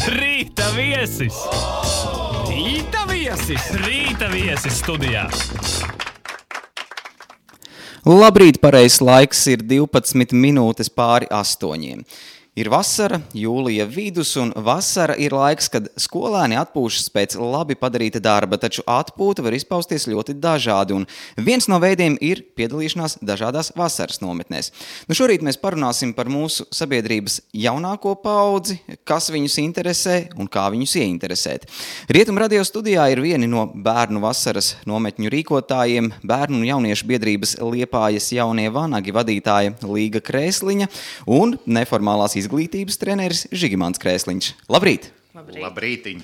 Rīta viesis! Rīta viesis! Rīta viesis studijā! Labrīt, pareizs laiks ir 12 minūtes pāri 8. Ir vasara, jūlija vidus, un vasara ir laiks, kad skolēni atpūšas pēc labi padarīta darba, taču atpūta var izpausties ļoti dažādi, un viens no veidiem ir piedalīšanās dažādās vasaras nometnēs. Šorīt mēs parunāsim par mūsu sabiedrības jaunāko paudzi, kas viņus interesē un kā viņus ieinteresēt. Rietum radio studijā ir vieni no bērnu vasaras nometņu rīkotājiem, bērnu un jauniešu biedrības Liepājas jaunie vanagi vadītāja Līga Krēsliņa un neformālās izglītības treneris Žigimants Krēsliņš. Labrīt! Labrītiņ!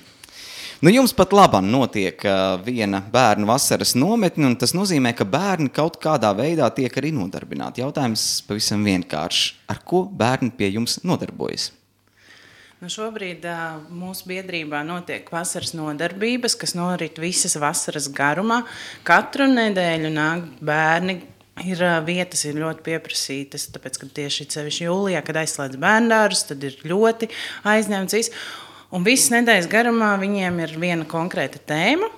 Jums pat labam notiek viena bērnu vasaras nometne, un tas nozīmē, ka bērni kaut kādā veidā tiek arī nodarbināti. Jautājums pavisam vienkāršs. Ar ko bērni pie jums nodarbojas? Šobrīd mūsu biedrībā notiek vasaras nodarbības, kas norit visas vasaras garumā. Katru nedēļu nāk bērni. Vietas ir ļoti pieprasītas, tāpēc, ka tieši sevišķi jūlijā, kad aizslēdz bērndārus, tad ir ļoti aizņemts viss. Un visas nedēļas garumā viņiem ir viena konkrēta tēma,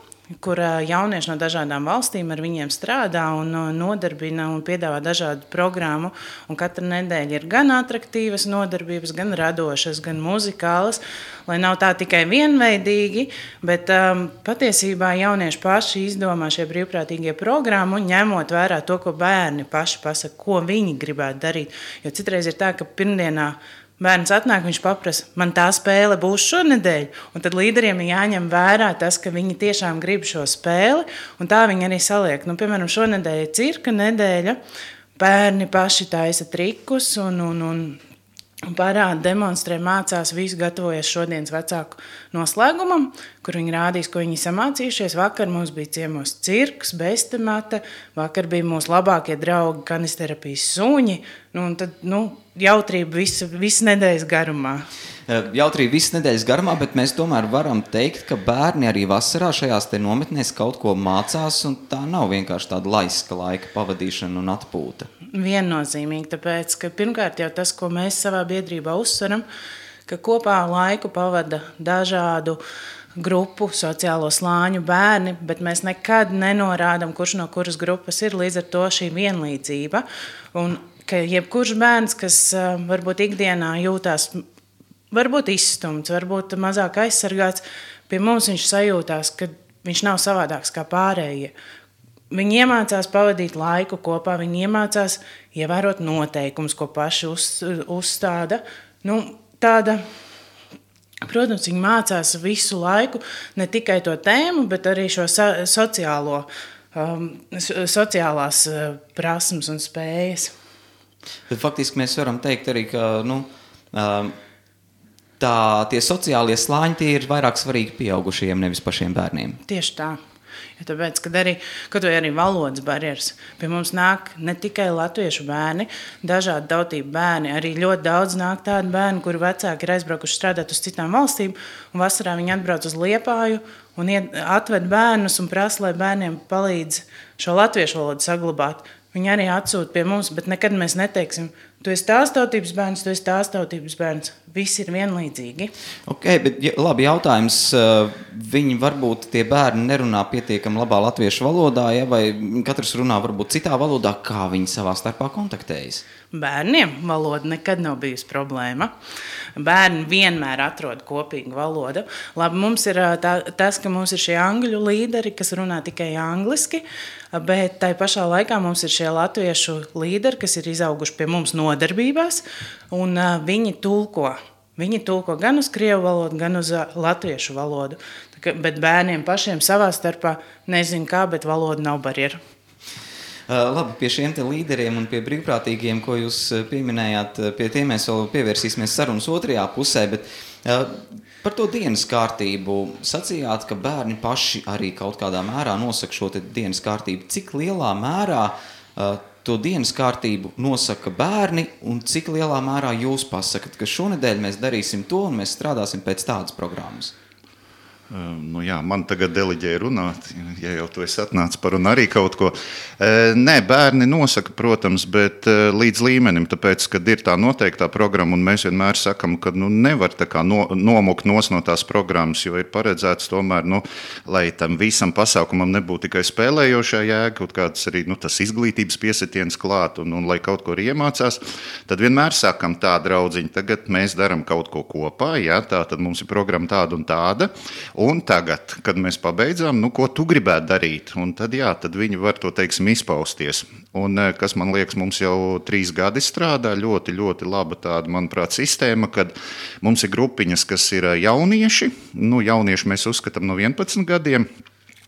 kur jaunieši no dažādām valstīm ar viņiem strādā un nodarbina un piedāvā dažādu programmu. Un katra nedēļa ir gan atraktīvas nodarbības, gan radošas, gan muzikālas, lai nav tā tikai vienveidīgi, bet patiesībā jaunieši paši izdomā šie brīvprātīgie programmu, ņemot vērā to, ko bērni paši pasaka, ko viņi gribētu darīt. Jo citreiz ir tā, ka pirmdienā bērns atnāk, viņš paprasa, man tā spēle būs šonedēļ, un tad līderiem ir jāņem vērā tas, ka viņi tiešām grib šo spēli, un tā viņi arī saliek. Piemēram, šonedēļ ir cirka nedēļa, bērni paši taisa trikus un parāda, demonstrē, mācās, visu gatavojas šodienas vecāku noslēgumam, kur viņi rādīs, ko viņi samācījušies. Vakar mums bija ciemos cirks, bestemata, vakar bija mūsu labākie draugi kanisterapijas suņi, un tad, jautrība visu nedēļas garumā. Jautrība visu nedēļas garumā, bet mēs tomēr varam teikt, ka bērni arī vasarā šajās te nometnēs kaut ko mācās, un tā nav vienkārši tāda laiska laika pavadīšana un atpūta. Viennozīmīgi, tāpēc, ka pirmkārt jau tas, ko mēs savā biedrībā uzsveram, ka kopā laiku pavada dažādu grupu, sociālo slāņu bērni, bet mēs nekad nenorādam, kurš no kuras grupas ir, līdz ar to šī vienlīdzība. Un ka jebkurš bērns, kas varbūt ikdienā jūtās, varbūt izstumts, varbūt mazāk aizsargāts, pie mums viņš sajūtās, ka viņš nav savādāks kā pārējie. Viņi iemācās pavadīt laiku kopā, viņi iemācās ievērot noteikumus, ko paši uzstāda. Protams, viņi mācās visu laiku, ne tikai to tēmu, bet arī šo sociālās prasmes un spējas. Bet faktiski mēs varam teikt arī, ka tie sociālie slāņi tie ir vairāk svarīgi pieaugušajiem, nevis pašiem bērniem. Tieši tā. Ja tāpēc, kad arī valodas barjeras, pie mums nāk ne tikai latviešu bērni, dažādi tautību bērni, arī ļoti daudz nāk tādi bērni, kuri vecāki ir aizbraukuši strādāt uz citām valstīm, un vasarā viņi atbrauc uz Liepāju un atved bērnus un prasa, lai bērniem palīdz šo latviešu valodu saglabāt. Viņi arī atsūta pie mums, bet nekad mēs neteiksim, tu esi tās tautības bērns, tu esi tās tautības bērns. Visi ir vienlīdzīgi. Bet labi jautājums. Viņi varbūt tie bērni nerunā pietiekami labā latviešu valodā, vai katrs runā varbūt citā valodā, kā viņi savā starpā kontaktējas? Bērniem valoda nekad nav bijusi problēma. Bērni vienmēr atrod kopīgu valodu. Labi, mums ir tas, ka mums ir šie angļu līderi, kas runā tikai angliski, bet tai pašā laikā mums ir šie latviešu līderi, kas ir izauguši pie mums nodarbībās, un viņi tulko. Viņi tulko gan uz krievu valodu, gan uz latviešu valodu. Bet bērniem pašiem savā starpā nezinu kā, bet valoda nav barjera. Labi, pie šiem te līderiem un pie brīvprātīgiem, ko jūs pieminējāt, pie tiem mēs vēl pievērsīsimies sarunas otrajā pusē, bet par to dienas kārtību sacījāt, ka bērni paši arī kaut kādā mērā nosaka šo te dienas kārtību. Cik lielā mērā to dienas kārtību nosaka bērni un cik lielā mērā jūs pasakat, ka šonedēļ mēs darīsim to un mēs strādāsim pēc tādas programmas? Nu jā, man tagad deliģēja runāt, ja jau tu esi atnācis par un arī kaut ko. Nē, bērni nosaka, protams, bet līdz līmenim, tāpēc, kad ir tā noteiktā programma, un mēs vienmēr sakam, ka nevar tā kā nomukt no tās programmas, jo ir paredzēts tomēr, lai tam visam pasākumam nebūtu tikai spēlējošā jēga, kaut kāds arī tas izglītības piesitiens klāt, un lai kaut ko arī iemācās, tad vienmēr sakam tā, draudziņi, tagad mēs daram kaut ko kopā, jā, tā tad mums ir programma tāda un tāda. Un tagad, kad mēs pabeidzām, ko tu gribētu darīt, un tad, tad viņi var to, teiksim, izpausties. Un, kas, man liekas, mums jau 3 gadi strādā, ļoti, ļoti laba tāda, manuprāt, sistēma, kad mums ir grupiņas, kas ir jaunieši, jaunieši mēs uzskatām no 11 gadiem,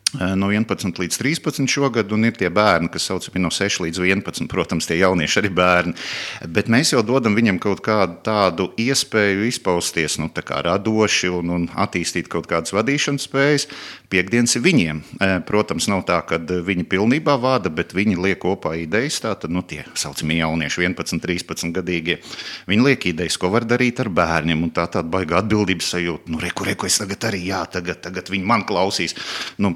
no 11 līdz 13 šogad, un ir tie bērni, kas saucami no 6 līdz 11, protams, tie jaunieši arī bērni, bet mēs jau dodam viņam kaut kādu tādu iespēju izpausties, tā kā radoši un attīstīt kaut kādas vadīšanas spējas. Piektdienas ir viņiem. Protams, nav tā, ka viņi pilnībā vada, bet viņi liek kopā idejas, tātad, tie saucamie jaunieši 11, 13 gadīgie, viņi liek idejas, ko var darīt ar bērniem, un tāda baiga atbildības sajūta, reku, es tagad arī, tagad viņi man klausīs.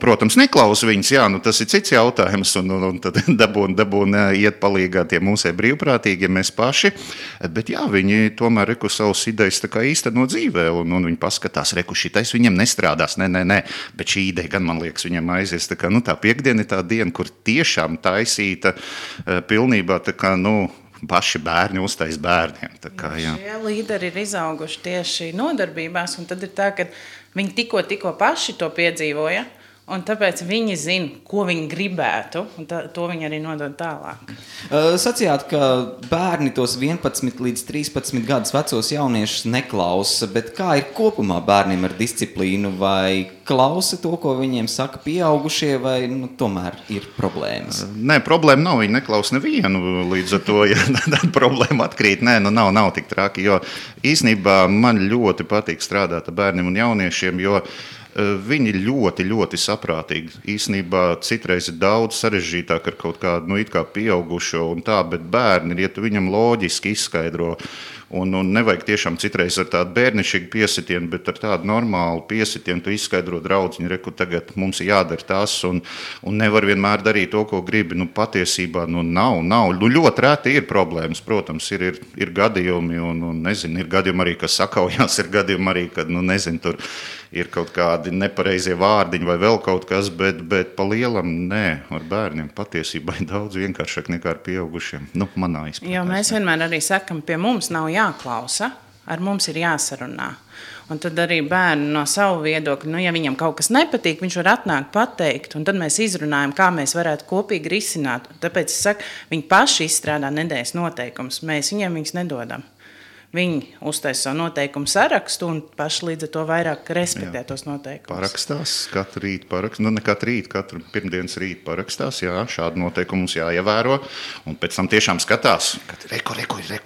Protams, neklausa viņas, tas ir cits jautājums, un tad dabūn iet palīgā tie mūsē brīvprātīgie, mēs paši, bet viņi tomēr savas idejas tā kā īsteno dzīvē, un viņi paskatās, šitais viņam nestrādās, nē, bet šī ideja gan, man liekas, viņam aizies, tā kā, tā piektdiena ir tā diena, kur tiešām taisīta pilnībā, tā kā, paši bērni uztais bērniem. Tā kā, jā. Šie līderi ir izauguši tieši nodarbībās, un tad ir tā, ka viņi tikko paši to piedzīvoja, un tāpēc viņi zina, ko viņi gribētu, un to viņi arī nodod tālāk. Sacījāt, ka bērni tos 11 līdz 13 gadus vecos jauniešus neklausa, bet kā ir kopumā bērniem ar disciplīnu? Vai klausa to, ko viņiem saka pieaugušie, vai tomēr ir problēmas? Nē, problēma nav, viņi neklausa nevienu, līdz ar to, ja tad problēma atkrīt. Nē, nav tik traki, jo īsnībā man ļoti patīk strādāt ar bērniem un jauniešiem, jo viņi ļoti, ļoti saprātīgi. Īsnībā citreiz ir daudz sarežģītāk ar kaut kādu, it kā pieaugušo un tā, bet bērni, ja tu viņam loģiski izskaidro, un nevajag tiešām citreiz ar tādu bērnišķīgu piesitienu, bet ar tādu normālu piesitienu tu izskaidro draudziņu, reku tagad mums ir jādara tas, un nevar vienmēr darīt to, ko gribi. Patiesībā nav. Ļoti reti ir problēmas, protams, ir gadījumi, un nezinu, ir gadījumi arī, kas sakaujās, ir gadījumi arī, kad, nezinu, tur ir kaut kādi nepareizie vārdiņi vai vēl kaut kas, bet pa lielam nē, ar bērniem patiesībā ir daudz vienkāršāk nekā ar pieaugušiem. Manā izpratnē. Jo mēs vienmēr arī sakam, pie mums nav jāklausa, ar mums ir jāsarunā. Un tad arī bērni no savu viedokļu, ja viņam kaut kas nepatīk, viņš var atnākt pateikt, un tad mēs izrunājam, kā mēs varētu kopīgi risināt. Tāpēc es saku, viņi paši izstrādā nedēļas noteikumus, mēs viņiem viņus nedodam. Viņi uztaisa savu noteikumu sarakstu un paši līdz ar to vairāk respektē tos noteikumus. Parakstās, katru rītu parakstās, ne katru rītu, katru pirmdienas rītu parakstās, šādu noteikumu mums jāievēro, un pēc tam tiešām skatās, kad reku,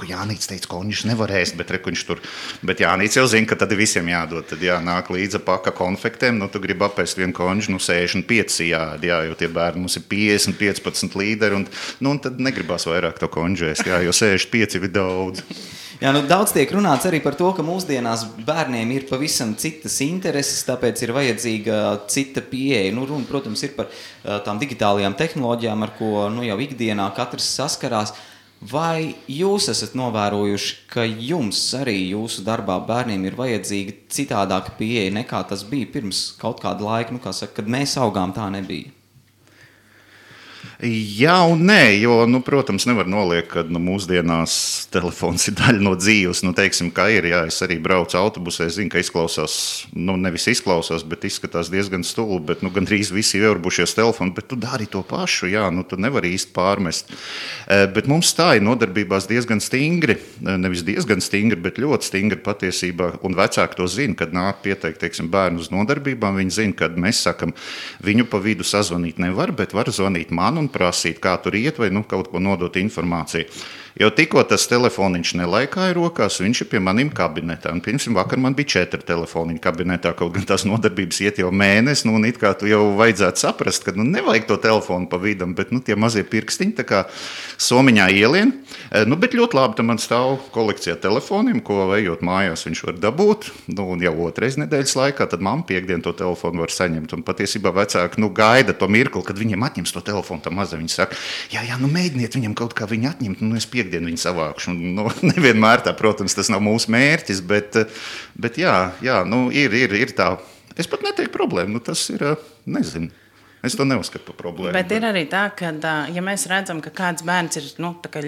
Jānīts teica, ka viņš nevar ēst, bet reku viņš tur, bet Jānīts jau zina, ka tad visiem jādod, tad nāk līdza paka konfektēm, tu gribi apēst vienu konžu, 65 jā, jo tie bērni mums ir 50, 15 līderi, un tad negribās vairāk to konžu ēst, jo 65 ir daudz. Jā, daudz tiek runāts arī par to, ka mūsdienās bērniem ir pavisam citas intereses, tāpēc ir vajadzīga cita pieeja. Runa, protams, ir par tām digitālajām tehnoloģijām, ar ko jau ikdienā katrs saskarās. Vai jūs esat novērojuši, ka jums arī jūsu darbā bērniem ir vajadzīga citādāka pieeja nekā tas bija pirms kaut kāda laika, kad mēs augām, tā nebija? Jā un nē, jo, protams, nevar noliekt, ka mūsdienās telefons ir daļa no dzīves. Teiksim, kā ir, es arī braucu autobusē, zinu, ka izklausās, nevis izklausās, bet izskatās diezgan stulbi, bet gandrīz visi ieurbušies telefonu, bet tu dari to pašu, tu nevari īsti pārmest. Bet mums tā ir nodarbībās diezgan stingri, nevis diezgan stingri, bet ļoti stingri patiesībā, un vecāki to zina, kad nāk pieteikt, teiksim, bērnu uz nodarbībām, viņi zina, kad mēs sakam, viņu pa vidu sazvanīt nevar, bet var zvanīt man un prasīt, kā tur iet, vai kaut ko nodot informāciju. Jo tikko tas telefoniņš nelaikāja rokās, viņš ir pie maniem kabinetā. Un, piemēram, vakar man bija 4 telefoniņi kabinetā, kaut gan tās nodarbības iet jau mēnesi. Nu, un it kā tu jau vajadzētu saprast, ka nevajag to telefonu pa vidam, bet tie mazie pirkstiņi tā kā somiņā ielien. Bet ļoti labi, tam man stāv kolekcijā telefoniem, ko ejot mājās viņš var dabūt. Un jau 2 nedēļas laikā, tad mamma piekdien to telefonu var saņemt. Un patiesībā vecāki gaida to mirkli, kad viņiem atņems to telefonu. Tā maza viņi saka, jā, mēģiniet viņam kaut kā viņu atņemt, es piekdienu viņu savākšu. Nevienmēr tā, protams, tas nav mūsu mērķis, bet jā, ir tā. Es pat neteiktu problēmu, tas ir, nezinu. Es to neuzskatu par problēmu. Bet ir arī tā, ka, ja mēs redzam, ka kāds bērns ir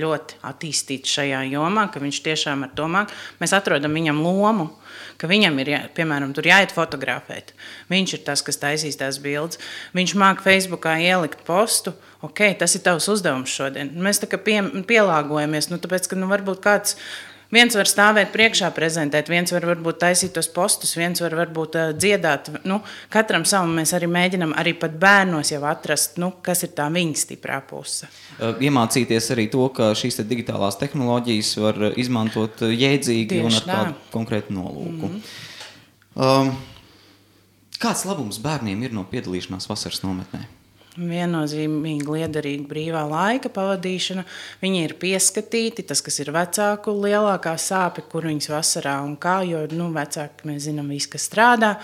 ļoti attīstīts šajā jomā, ka viņš tiešām ar to māk, mēs atrodam viņam lomu, ka viņam ir, piemēram, tur jāiet fotografēt. Viņš ir tas, kas taisīs tās bildes. Viņš māk Facebookā ielikt postu. Ok, tas ir tavs uzdevums šodien. Mēs tā kā pielāgojamies, tāpēc, ka varbūt kāds viens var stāvēt priekšā prezentēt, viens var varbūt taisīt tos postus, viens var varbūt dziedāt. Katram savam mēs arī mēģinam arī pat bērnos jau atrast, kas ir tā viņa stiprā puse. Iemācīties arī to, ka šīs digitālās tehnoloģijas var izmantot jēdzīgi un ar kādu konkrētu nolūku. Kāds labums bērniem ir no piedalīšanās vasaras nometnē? Viennozīmīgi liederīga brīvā laika pavadīšana. Viņi ir pieskatīti, tas, kas ir vecāku lielākā sāpe, kur viņas vasarā un kā, jo vecāki mēs zinām visu, kas strādā.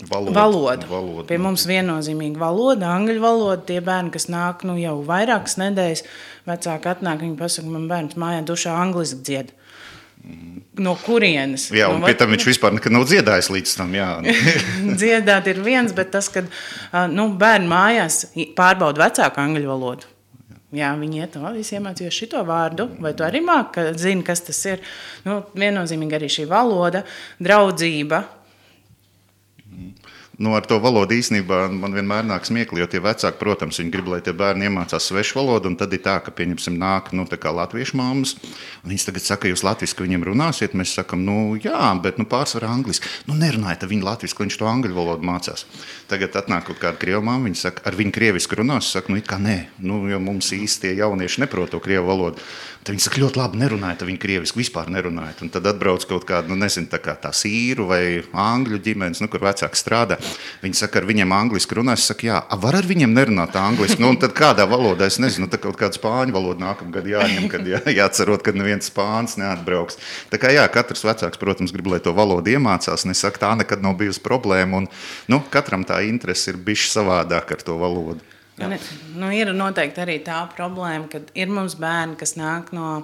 Valoda. Pie mums viennozīmīgi valoda, angļu valoda. Tie bērni, kas nāk jau vairākas nedēļas, vecāki atnāk, viņi pasaka, man bērns mājā dušā angliski dzied. No kurienes? Jā, un pie tam viņš vispār nekad nav dziedājis līdz tam, jā. Dziedāt ir viens, bet tas, kad bērni mājās pārbauda vecāku angļu valodu. Jā, viņi iet, es iemācījos šito vārdu, vai tu arī zini, kas tas ir. Viennozīmīgi arī šī valoda, draudzība. Ar to valodu īstenībā man vienmēr nāk smiekli, jo tie vecāki, protams, viņi grib, lai tie bērni iemācās svešu valodu, un tad ir tā, ka, pieņemsim, nāk, tā kā latviešu mammas, un viņas tagad saka, jūs latviski viņiem runāsiet, mēs sakam, jā, bet, pārsvarā angliski. Nerunājiet ar viņu latviski, viņš to angļu valodu mācās. Tagad atnāk kaut kāda krievu mamma, viņa saka, ar viņu krieviski runās, saka, it kā nē, jo mums īsti tie jaunieši neprot to krievu valodu. Tad viņi saka, ļoti labi, nerunājiet ar viņu krieviski, vispār nerunājiet. Un tad atbrauc kaut kāda, nezinu, tā sīru vai angļu ģimenes, kur vecāki strādā. Viņi saka, ar viņiem angliski runās, saka, jā, var ar viņiem nerunāt angliski. Un tad kādā valodā, es nezinu, tā kaut kāda spāņu valoda nākamgad jāņem, kad jāatcerot, kad neviens spāns neatbrauks. Tā kā jā, katrs vecāks, protams, grib, lai to valodu iemācās. Un es saku, tā nekad nav bijusi problēma. Un, katram tā interese ir bišķi savādāk ar to valodu. Ir noteikti arī tā problēma, ka ir mums bērni, kas nāk no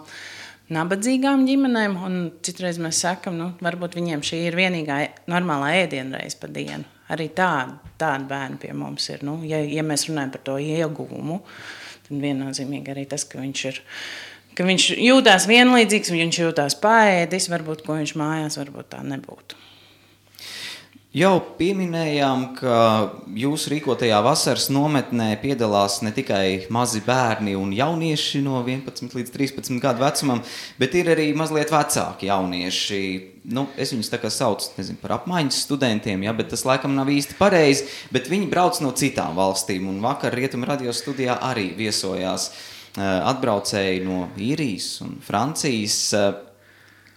nabadzīgām ģimenēm, un citreiz mēs sakam, varbūt viņiem šī ir vienīgā normālā ēdienreize pa dienu. Arī tādi bērni pie mums ir. Ja mēs runājam par to ieguvumu, tad viennozīmīgi arī tas, ka viņš jūtās vienlīdzīgs, viņš jūtās paēdis, varbūt, ko viņš mājās varbūt tā nebūtu. Jau pieminējām, ka jūsu rīkotajā vasaras nometnē piedalās ne tikai mazi bērni un jaunieši no 11 līdz 13 gadu vecumam, bet ir arī mazliet vecāki jaunieši. Es viņus tā kā saucu, par apmaiņas studentiem, bet tas laikam nav īsti pareizi, bet viņi brauc no citām valstīm, un vakar Rietumu radio studijā arī viesojās atbraucēji no Īrijas un Francijas.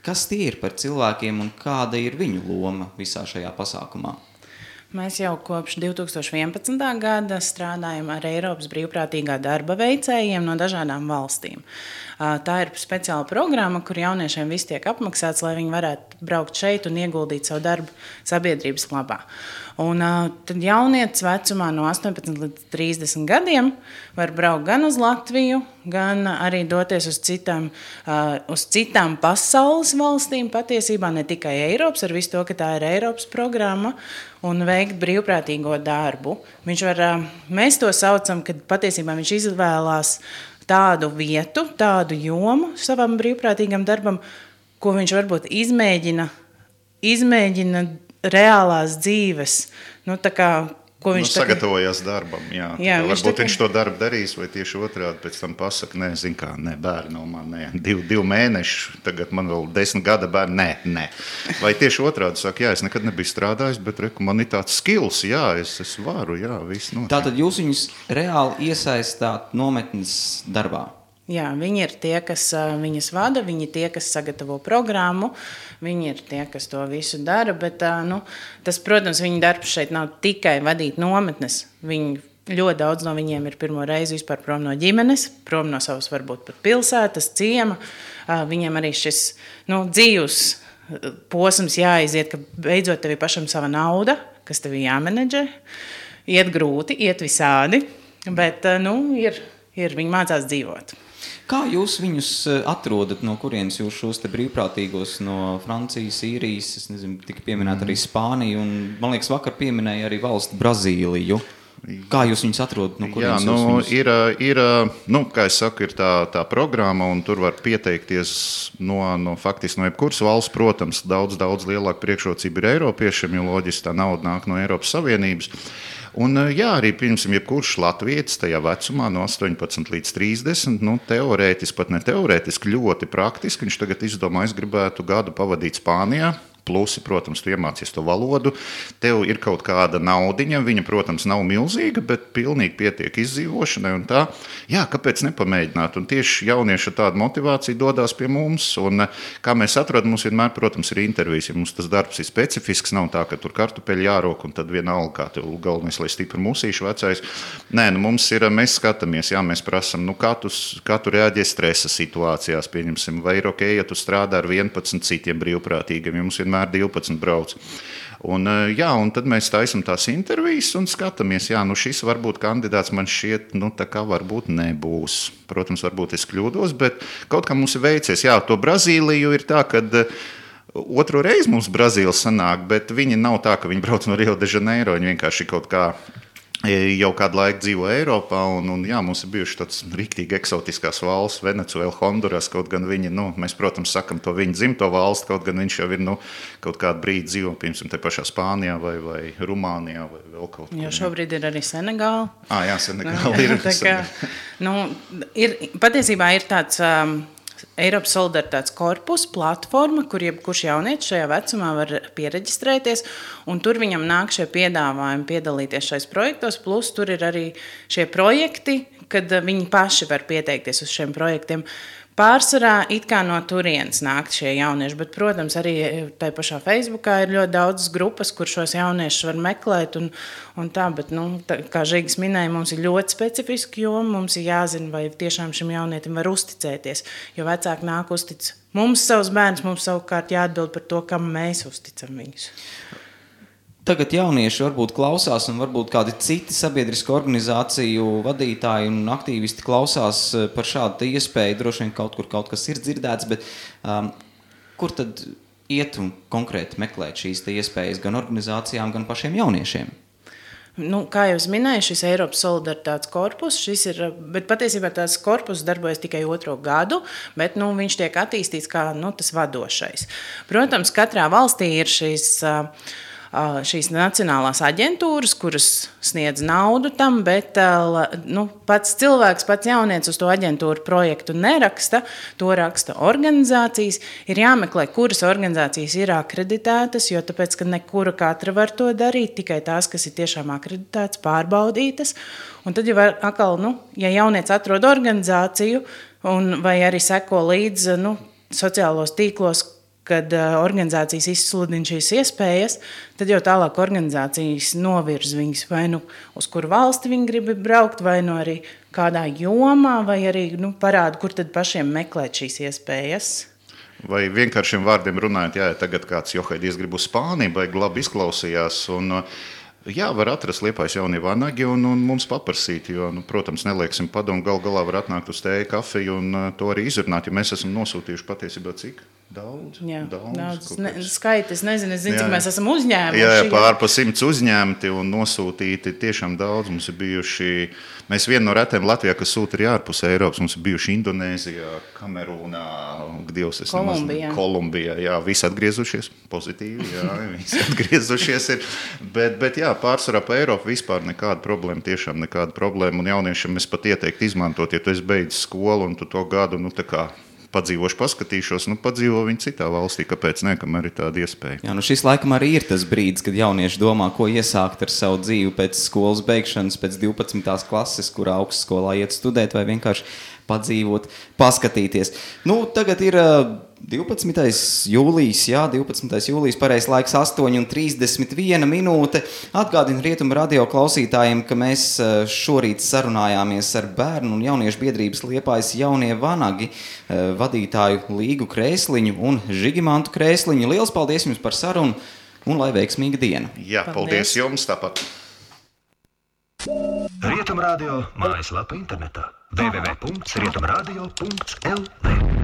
Kas tie ir par cilvēkiem un kāda ir viņu loma visā šajā pasākumā? Mēs jau kopš 2011. gada strādājam ar Eiropas brīvprātīgā darba veicējiem no dažādām valstīm. Tā ir speciāla programma, kur jauniešiem viss tiek apmaksāts, lai viņi varētu braukt šeit un ieguldīt savu darbu sabiedrības labā. Un tad jaunietis vecumā no 18 līdz 30 gadiem var braukt gan uz Latviju, gan arī doties uz citām pasaules valstīm, patiesībā ne tikai Eiropas, ar visu to, ka tā ir Eiropas programma, un veikt brīvprātīgo darbu. Mēs to saucam, kad patiesībā viņš izvēlās tādu vietu, tādu jomu savam brīvprātīgam darbam, ko viņš varbūt izmēģina reālās dzīves, ko viņš sagatavojās darbam, jā varbūt viņš to darbu darīs, vai tieši otrādi pēc tam pasaka, bērni nav man, 2 mēneši, tagad man vēl 10 gada bērni, nē. Vai tieši otrādi saka, es nekad nebiju strādājis, bet man ir tāds skills, es varu, viss notiek. Tātad jūs viņus reāli iesaistāt nometnes darbā? Jā, viņi ir tie, kas viņas vada, viņi ir tie, kas sagatavo programmu, viņi ir tie, kas to visu dara, bet tas, protams, viņa darbs šeit nav tikai vadīt nometnes. Ļoti daudz no viņiem ir pirmo reizi vispār prom no ģimenes, prom no savas varbūt pat pilsētas, ciema. Viņiem arī šis dzīves posms jāiziet, ka beidzot tev ir pašam sava nauda, kas tev ir jāmenedžē. Iet grūti, iet visādi, bet viņi mācās dzīvot. Kā jūs viņus atrodat, no kurienes jūs šos te brīvprātīgos no Francijas, Īrijas, es nezinu, tika pieminēta arī Spānija, un man liekas vakar pieminēja arī valsti Brazīliju. Kā jūs viņus atrodat, no kurienes jūs viņus? Kā es saku, ir tā programma, un tur var pieteikties faktiski no jebkuras valsts, protams, daudz lielāka priekšrocība ir Eiropiešiem, jo loģiski tā nauda nāk no Eiropas Savienības. Un, arī pirmsim, jebkurš latvietis tajā vecumā no 18 līdz 30, teorētiski, pat ne teorētiski, ļoti praktiski. Viņš tagad izdomā, es gribētu gadu pavadīt Spānijā. Plusi, protams, tu iemācies to valodu, tev ir kaut kāda naudiņa, viņa, protams, nav milzīga, bet pilnīgi pietiek izdzīvošanai un tā. Jā, kāpēc nepamēģināt? Un tieši jaunieši ar tādu motivāciju dodās pie mums, un kā mēs atrodam, mums vienmēr, protams, ir intervijas, ja mums tas darbs ir specifisks, nav tā, ka tur kartupeļi jārok, un tad vienalga, kā tev galvenais, lai stipri musīšu vecais. Nē, mums ir, mēs skatāmies, jā, mēs prasam, kā tu reaģē stresa situācijās, pieņemsim, vai ir ok, ja tu strādā ar 11 citiem brīvprātīgiem, ja mums vienmēr 12 brauc. Un tad mēs taisam tās intervijas un skatāmies, šis varbūt kandidāts man šķiet, tā kā varbūt nebūs. Protams, varbūt es kļūdos, bet kaut kā mums ir veicies. Jā, to Brazīliju ir tā, kad otro reizi mums Brazīla sanāk, bet viņi nav tā, ka viņi brauc no Rio de Janeiro, viņi vienkārši kaut kā jau kādu laiku dzīvo Eiropā, un mums ir bijuši tāds riktīgi eksotiskās valsts, Venecuēla, Honduras, kaut gan viņi, mēs, protams, sakam to viņu dzimto valsti, kaut gan viņš jau ir, kaut kādu brīdi dzīvo, piemēram, te pašā Spānijā vai Rumānijā vai vēl kaut kur. Jo šobrīd ir arī Senegāla. Jā, Senegāla ir. Tā kā, patiesībā ir tāds Eiropas solidaritātes korpusa platforma, kur jebkurš jaunietis šajā vecumā var piereģistrēties, un tur viņam nāk šie piedāvājumi piedalīties šais projektos, plus tur ir arī šie projekti, kad viņi paši var pieteikties uz šiem projektiem. Pārsvarā it kā no turienes nākt šie jaunieši, bet, protams, arī tajā pašā Facebookā ir ļoti daudz grupas, kur šos jauniešus var meklēt un tā, bet, kā Žigis minēja, mums ir ļoti specifiski joma, mums ir jāzina, vai tiešām šim jaunietim var uzticēties, jo vecāki nāk uztic mums savus bērnus, mums savukārt jāatbild par to, kam mēs uzticam viņus. Tagad jaunieši varbūt klausās un varbūt kādi citi sabiedrisku organizāciju vadītāji un aktīvisti klausās par šādu iespēju. Droši vien kaut kas ir dzirdēts, bet kur tad iet un konkrēti meklēt šīs iespējas gan organizācijām, gan pašiem jauniešiem? Kā jau es minēju, šis Eiropas solidaritātes korpus, bet patiesībā tās korpus darbojas tikai 2. gadu, bet viņš tiek attīstīts kā tas vadošais. Protams, katrā valstī ir šīs nacionālās aģentūras, kuras sniedz naudu tam, bet pats cilvēks, pats jaunietis uz to aģentūru projektu neraksta, to raksta organizācijas. Ir jāmeklē, kuras organizācijas ir akreditētas, jo tāpēc, ka nekura katra var to darīt, tikai tās, kas ir tiešām akreditētas, pārbaudītas. Un tad jau atkal, ja jaunietis atrod organizāciju vai arī seko līdz sociālos tīklos, kad organizācijas izsludina šīs iespējas, tad jau tālāk organizācijas novirz viņus vai uz kuru valsti viņi grib braukt, vai arī kādā jomā, vai arī parāda, kur tad pašiem meklēt šīs iespējas. Vai vienkāršiem vārdiem runājot, tagad kāds Johaidīs grib uz Spāniju, vai labi izklausījās, un var atrast Liepājas jaunie vanagi un mums paprasīt, jo, protams, nelieksim padomu, galā var atnākt uz tēju, kafiju un to arī izrunāt, jo mēs esam nosūtījuši patiesībā cik? Daudz. Skaiti, es nezinu, cik mēs esam uzņēmuši. Jā, pārpa 100 uzņēmti un nosūtīti tiešām daudz. Mums ir bijuši, mēs viena no retiem Latvijā, kas sūta arī ārpus Eiropas, mums ir bijuši Indonēzijā, Kamerūnā, Kolumbijā, jā, visi atgriezušies, pozitīvi, jā, visi atgriezušies ir, bet jā, pārsvarā pa Eiropu vispār nekāda problēma, tiešām nekāda problēma, un jauniešiem es pat ieteiktu izmantot, ja tu esi beidzis skolu un tu to gadu, tā kā padzīvošu, paskatīšos, padzīvo viņi citā valstī, kāpēc ne, kamēr ir tāda iespēja. Jā, šis laikam arī ir tas brīdis, kad jaunieši domā, ko iesākt ar savu dzīvi pēc skolas beigšanas, pēc 12. klases, kurā augstskolā iet studēt, vai vienkārši padzīvot, paskatīties. Nu, tagad ir 12. jūlijas, jā, 12. jūlijas, pareizs laiks 8:31 minūte. Atgādinu Rietumu radio klausītājiem, ka mēs šorīt sarunājāmies ar bērnu un jauniešu biedrības Liepājas jaunie vanagi vadītāju Līgu Krēsliņu un Žigimantu Krēsliņu. Liels paldies jums par sarunu un lai veiksmīga diena. Jā, paldies jums tāpat. Rietumu radio mājaslapa internetā www.rietumradio.lv